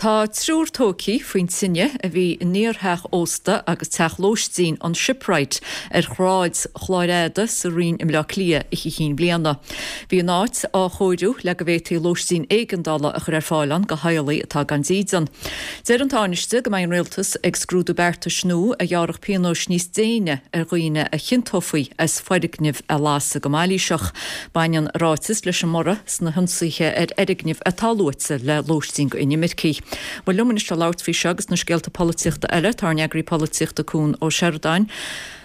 Tá triúr tógtha faoin tine a bhí in iartheach ósta agus teach lóistín an Shipwright ar Shráid Chláir Fhada sa Rinn i mBleá Cliath Oíche Chinn Bliana. Bhí an áit á chóiriú le go bhféadfaí lóistín éigeandála a chur ar fáil ann do theaghlaigh atá gan dídean. Deir an Tánaiste go mbeidh an Rialtas ag scrúdú beartais nua a ghearrfadh pionóis níos déine ar dhaoine a chiontófaí as foirgnimh a lasadh go mailíseach. Baineann a ráiteas leis an mborradh sna hionsaithe ar fhoirgnimh atá luaite le lóistín d'inimircigh. Bhuel liom anois le labhairt faoi seo agus na scéalta polaitíochta eile tá ár n-eagraí polaitíochta Cuan Ó Seireadáin.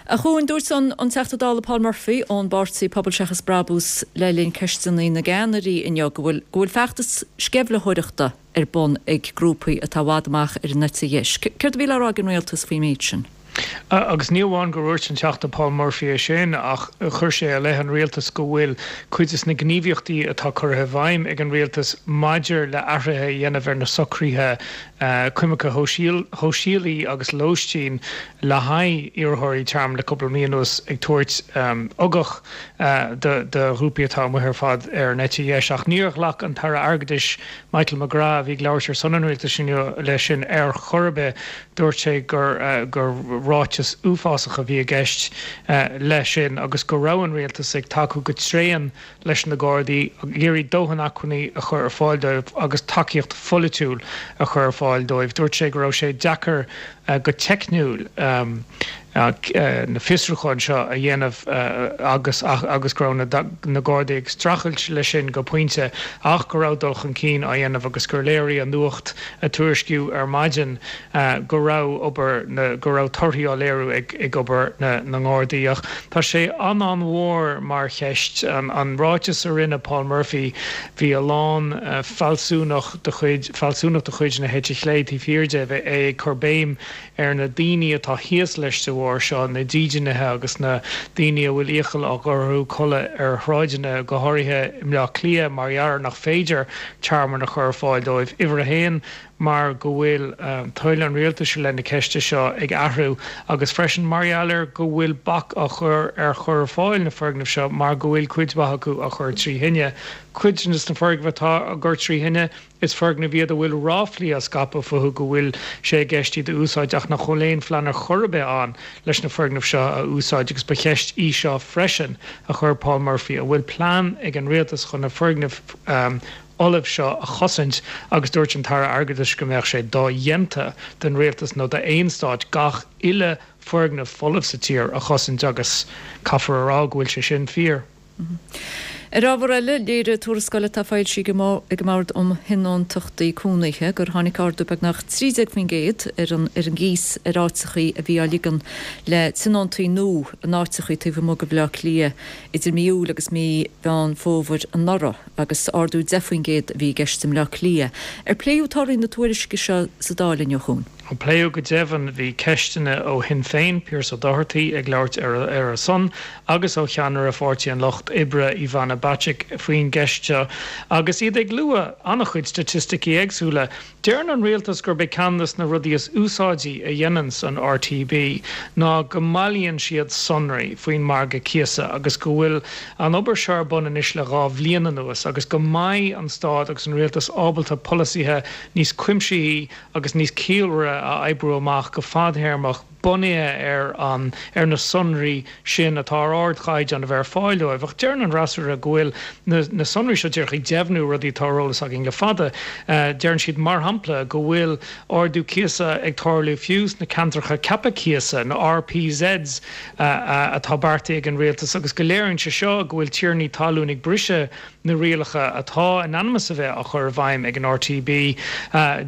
A Chuain, dúirt an Teachta Dála Paul Murphy ón bpáirtí Pobal Seachas Brabús le linn Ceisteanna na gCeannairí inniu go bhfuil go bhfuil feachtas sceimhlitheoireachta ar bun ag grúpaí atá i bhfad amach ar an eite dheis. Céard a bhí le rá ag an rialtas faoin méid sin? Agus ní amháin gur dhúirt an Teachta Paul Murphy é sin ach chuir sé i leith an rialtais go bhfuil cuid de na gníomhaíochtaí atá curtha i bhfeidhm ag an rialtas maidir le athruithe a dhéanamh ar na socruithe coimirce shóisialaí agus lóistín le haghaidh iarrthóirí tearmainn le cúpla mí anuas ag tabhairt ugach do ghrúpaí atá amuigh ar fad ar an eite dheis. Ach níor ghlac an tAire Airgeadais Michael McGrath, a bhí ag labhairt ar son an rialtais inniu, leis sin ar chor ar bith. Dúirt sé gur gur ráiteas uafásach a bhí i gceist leis sin agus go raibh an rialtas ag tacú go tréan leis na Gardaí, ag iarraidh dóthain acmhainní a chur ar fáil dóibh agus tacaíocht pholaitiúil a chur ar fáil dóibh. Dúirt sé go raibh sé deacair go teicniúil na fiosrúcháin seo a dhéanamh agus agus go raibh na Gardaí ag streachailt leis sin go pointe ach go raibh dul chun cinn á dhéanamh agus gur léirigh an nuacht a tuairiscíodh ar maidin go raibh obair na go raibh torthaí á léiriú ag ag obair na na nGardaí. Ach tá sé an-an-mhór mar cheist. An ráiteas a rinne Paul Murphy, bhí a lán fealsúnach de chuid fealsúnacht de chuid na heite chlé taobh thiar de, é ag cur béim ar na daoine atá thíos leis de bharr seo, na dídeanaithe agus na daoine a bhfuil iachall á gcur orthu codladh ar shráideanna, go háirithe i mBleá Cliath, mar gheall ar nach féidir tearmann a chur ar fáil dóibh. Uimhir a haon, mar go bhfuil toil an rialtais i leith na ceiste seo ag athrú agus freisin mar gheall ar go bhfuil bac á chur ar chur ar fáil na foirgneamh seo mar go bhfuil cuid mhaith acu á chur trí thine. Cuid de na foirgnimh atá á gcur trí thine, Is foirgnimh iad a bhfuil ráflaí á scaipeadh fúthu go bhfuil sé i gceist iad a úsáid ach nach bhfuil aon phlean ar chor ar bith ann leis na foirgnimh seo a úsáid agus ba cheist í seo freisin a chuir Paul Murphy, an bhfuil plean ag an rialtas chun na foirgnimh fholamh seo a chosaint agus dúirt an tAire Airgeadais go mbeadh sé dodhéanta don rialtas nó d'aon stát gach uile foirgneamh folamh sa tír a chosaint agus caithfear a rá go bhfuil sé sin fíor. Ar ábhar eile, léirigh tuarascáil atá foilsithe ag an mBord um Thionóntachtaí Cónaithe gur tháinig ardú beagnach 13% ar an ar an gcíos ar áiteachaí a bhí á ligean le tionóntaí nua in áiteachaí taobh amuigh de Bhaile Átha Cliath idir mí Iúil agus mí Mheán Fómhair anuraidh agus ardú 10% a bhí i gceist i mBleá Cliath. Ar pléadh torthaí na tuairisce seo sa Dáil inniu, a Chuain? Pléadh go deimhin. Bhí ceisteanna ó Shinn Féin, Pearse Doherty, ag labhairt ar a son agus ó cheannaire Pháirtí an Lucht Oibre, Ivana Bacik, faoin gceist seo agus iad ag lua an-chuid staitisticí éagsúla. Deireann an rialtas gurb é ceann de na rudaí is úsáidí a dhéananns an RTB ná go mbailíonn siad sonraí faoin margadh cíosa agus go bhfuil an obair seo ar bun anois le 2 bhliain anuas agus go mbeidh an stát agus an rialtas ábalta polasaithe níos cuimsithí agus níos ciallmhaire a oibriú amach go fadthéarmach bunaithe ar an ar na sonraí sin atá ar ardchaighdeán a bheith ar fáil dóibh. Ach deireann an fhreasúra go bhfuil na na sonraí seo díreach ag deimhniú rudaí atá ar eolas againn le fada. Deireann siad, mar shampla, go bhfuil ardú cíosa ag tarlú fiú sna ceantracha ceaptha cíosa, na RPZs, atá beartaithe ag an rialtas agus go léiríonn sé seo go bhfuil tiarnaí talún ag briseadh na rialacha atá in ainm is a bheith á chur i bhfeidhm ag an RTB.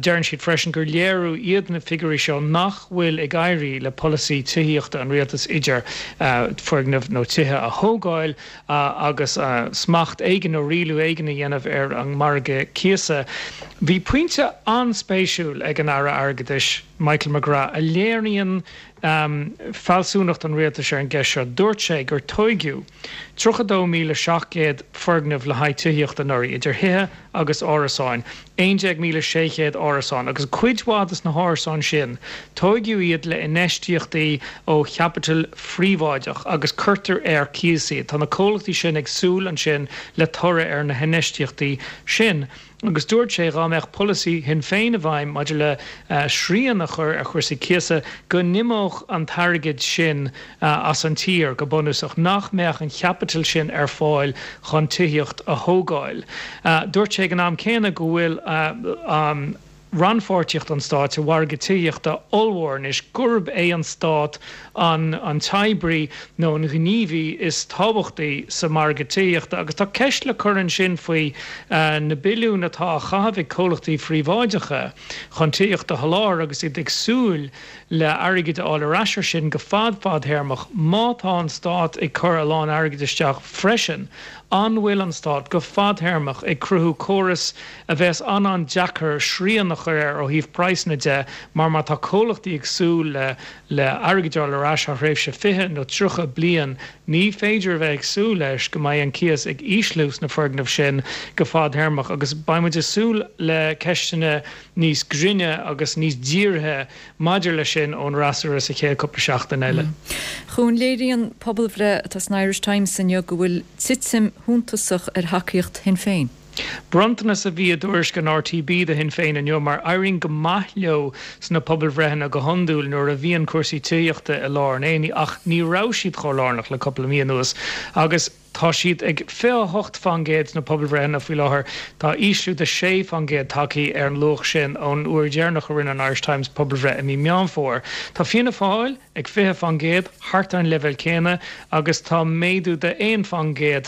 Deireann siad freisin gur léiriú iad na figiúirí seo nach bhfuil ag éirí le polasaí tithíochta an rialtais idir foirgnimh nó tithe a thógáil agus smacht éigin nó rialú éigin a dhéanamh ar an margadh cíosa. Bhí pointe an-spéisiúil ag an Aire Airgeadais, Michael McGrath, a léiríonn fealsúnacht an rialtais ar an gceist seo. Dúirt sé gur tóigeadh 32,700 foirgneamh le haghaidh tithíochta anuraidh, idir thithe agus árasáin, 11,600 árasán, agus cuid mhaith de na hárasáin sin, tóigeadh iad le infheistíochtaí ó chaipiteal phríobháideach agus cuirtear ar cíos iad. Tá na comhlachtaí sin ag súil ansin le toradh ar na hinfheistíochtaí sin. Agus dúirt sé dhá mbeadh polasaí Shinn Féin i bhfeidhm maidir le srian a chur ar chúrsaí cíosa, go n-imeodh an t-airgead sin as an tír, go bunúsach, nach mbeadh an chaipiteal sin ar fáil chun tithíocht a thógáil. Dúirt sé ag an am céanna go bhfuil an rannpháirtíocht an stáit sa mhargadh tithíochta ollmhór anois, gurb é an stát an an t-oibrí nó an gníomhaí is tábhachtaí sa mhargadh tithíochta. Agus tá ceist le cur ansin faoi na billiúin atá á chaitheamh ag comhlachtaí phríobháideacha chun tithíocht a sholáthar agus iad ag súil le airgead a fháil ar ais ar sin go fad fadthéarmach. Má tá an stát ag cur a lán airgid isteach freisin, an bhfuil an stát, go fadthéarmach, ag cruthú córas a bheas an-an-deacair srian a chur air ó thaobh praghsanna de mar má tá comhlachtaí ag súil le le airgead a fháil ar ais thar thréimhse 20 nó 30 bliain, ní féidir a bheith ag súil leis go mbeidh an cíos ag ísliú sna foirgnimh sin go fadthéarmach agus beidh muid ag súil le ceisteanna níos grinne agus níos dírithe maidir leis sin ón fhreasúra sa chéad cúpla seachtain eile. Chuan, léiríonn pobalbhreith atá san Irish Times inniu go bhfuil titim shuntasach ar thacaíocht Shinn Féin. Bronntanas a bhí i dtuairisc an RTB do Shinn Féin inniu mar éiríonn go maith leo sna pobalbhreitheanna go hiondúil nuair a bhíonn cúrsaí tithíochta i lár an aonaigh ach ní raibh siad chomh lárnach le cúpla mí anuas agus Tá siad ag 28% sna pobalbhreitheanna faoi láthair. Tá ísliú de 6% tagtha ar an luach sin ón uair dheireanach a rinne an Irish Times pobalbhreith i mí Meán Fómhair. Tá Fianna Fáil ag 20%, thart ar an leibhéal céanna, agus tá méadú de 1%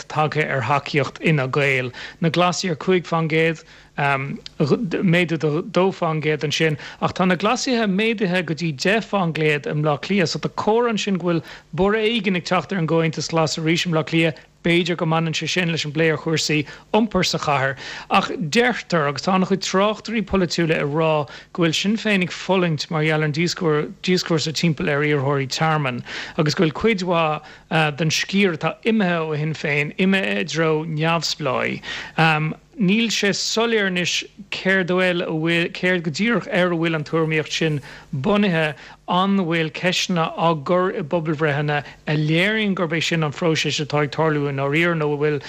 tagtha ar thacaíocht Fhine Gael. Na Glasaigh ar 5%. Méadú de 2% ansin, ach tá na Glasaithe méadaithe go dtí 10% i mBleá Cliath, so tá comhartha ansin go bhfuil borradh éigin ag teacht ar an gComhaontas Glas arís i mBleá Cliath. B'fhéidir go mbaineann sé sin leis an bplé ar chúrsaí iompair sa chathair. Ach deirtear, agus tá an-chuid tráchtairí polaitiúla ag rá, go bhfuil Sinn Féin ag fulaingt mar gheall ar an díoscúrsa timpeall ar iarrthóirí tearmainn agus go bhfuil cuid mhaith den sciar atá imithe ó Shinn Féin imithe i dtreo neamhspleáigh. Níl sé soiléir anois céard a bhfuil, céard go díreach ar a bhfuil an tuairimíocht sin bunaithe. An bhfuil ceisteanna á gcur i bpobalbhreitheanna a léiríonn gurb é sin an phróiseas atá ag tarlú i ndáiríre nó an bhfuil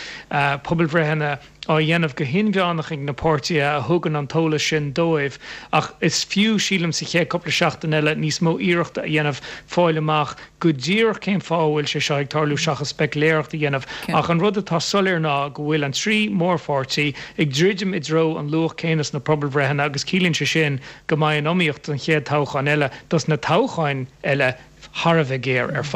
pobalbhreitheanna á dhéanamh go hinmheánach ag na páirtithe a thugann an t-eolas sin dóibh? Ach is fiú, sílim, sa chéad cúpla seachtain eile níos mó iarrachta a dhéanamh fáil amach go díreach cén fáth a bhfuil sé seo ag tarlú seachas speiciléireacht a dhéanamh ach an rud atá soiléir ná go bhfuil an 3 mórpháirtí ag druidim i dtreo an luach céanna sna pobalbhreitheanna agus ciallaíonn sé sin go mbeidh an iomaíocht don chéad toghchán eile, dos na toghcháin eile, thar a bheith géar ar fad.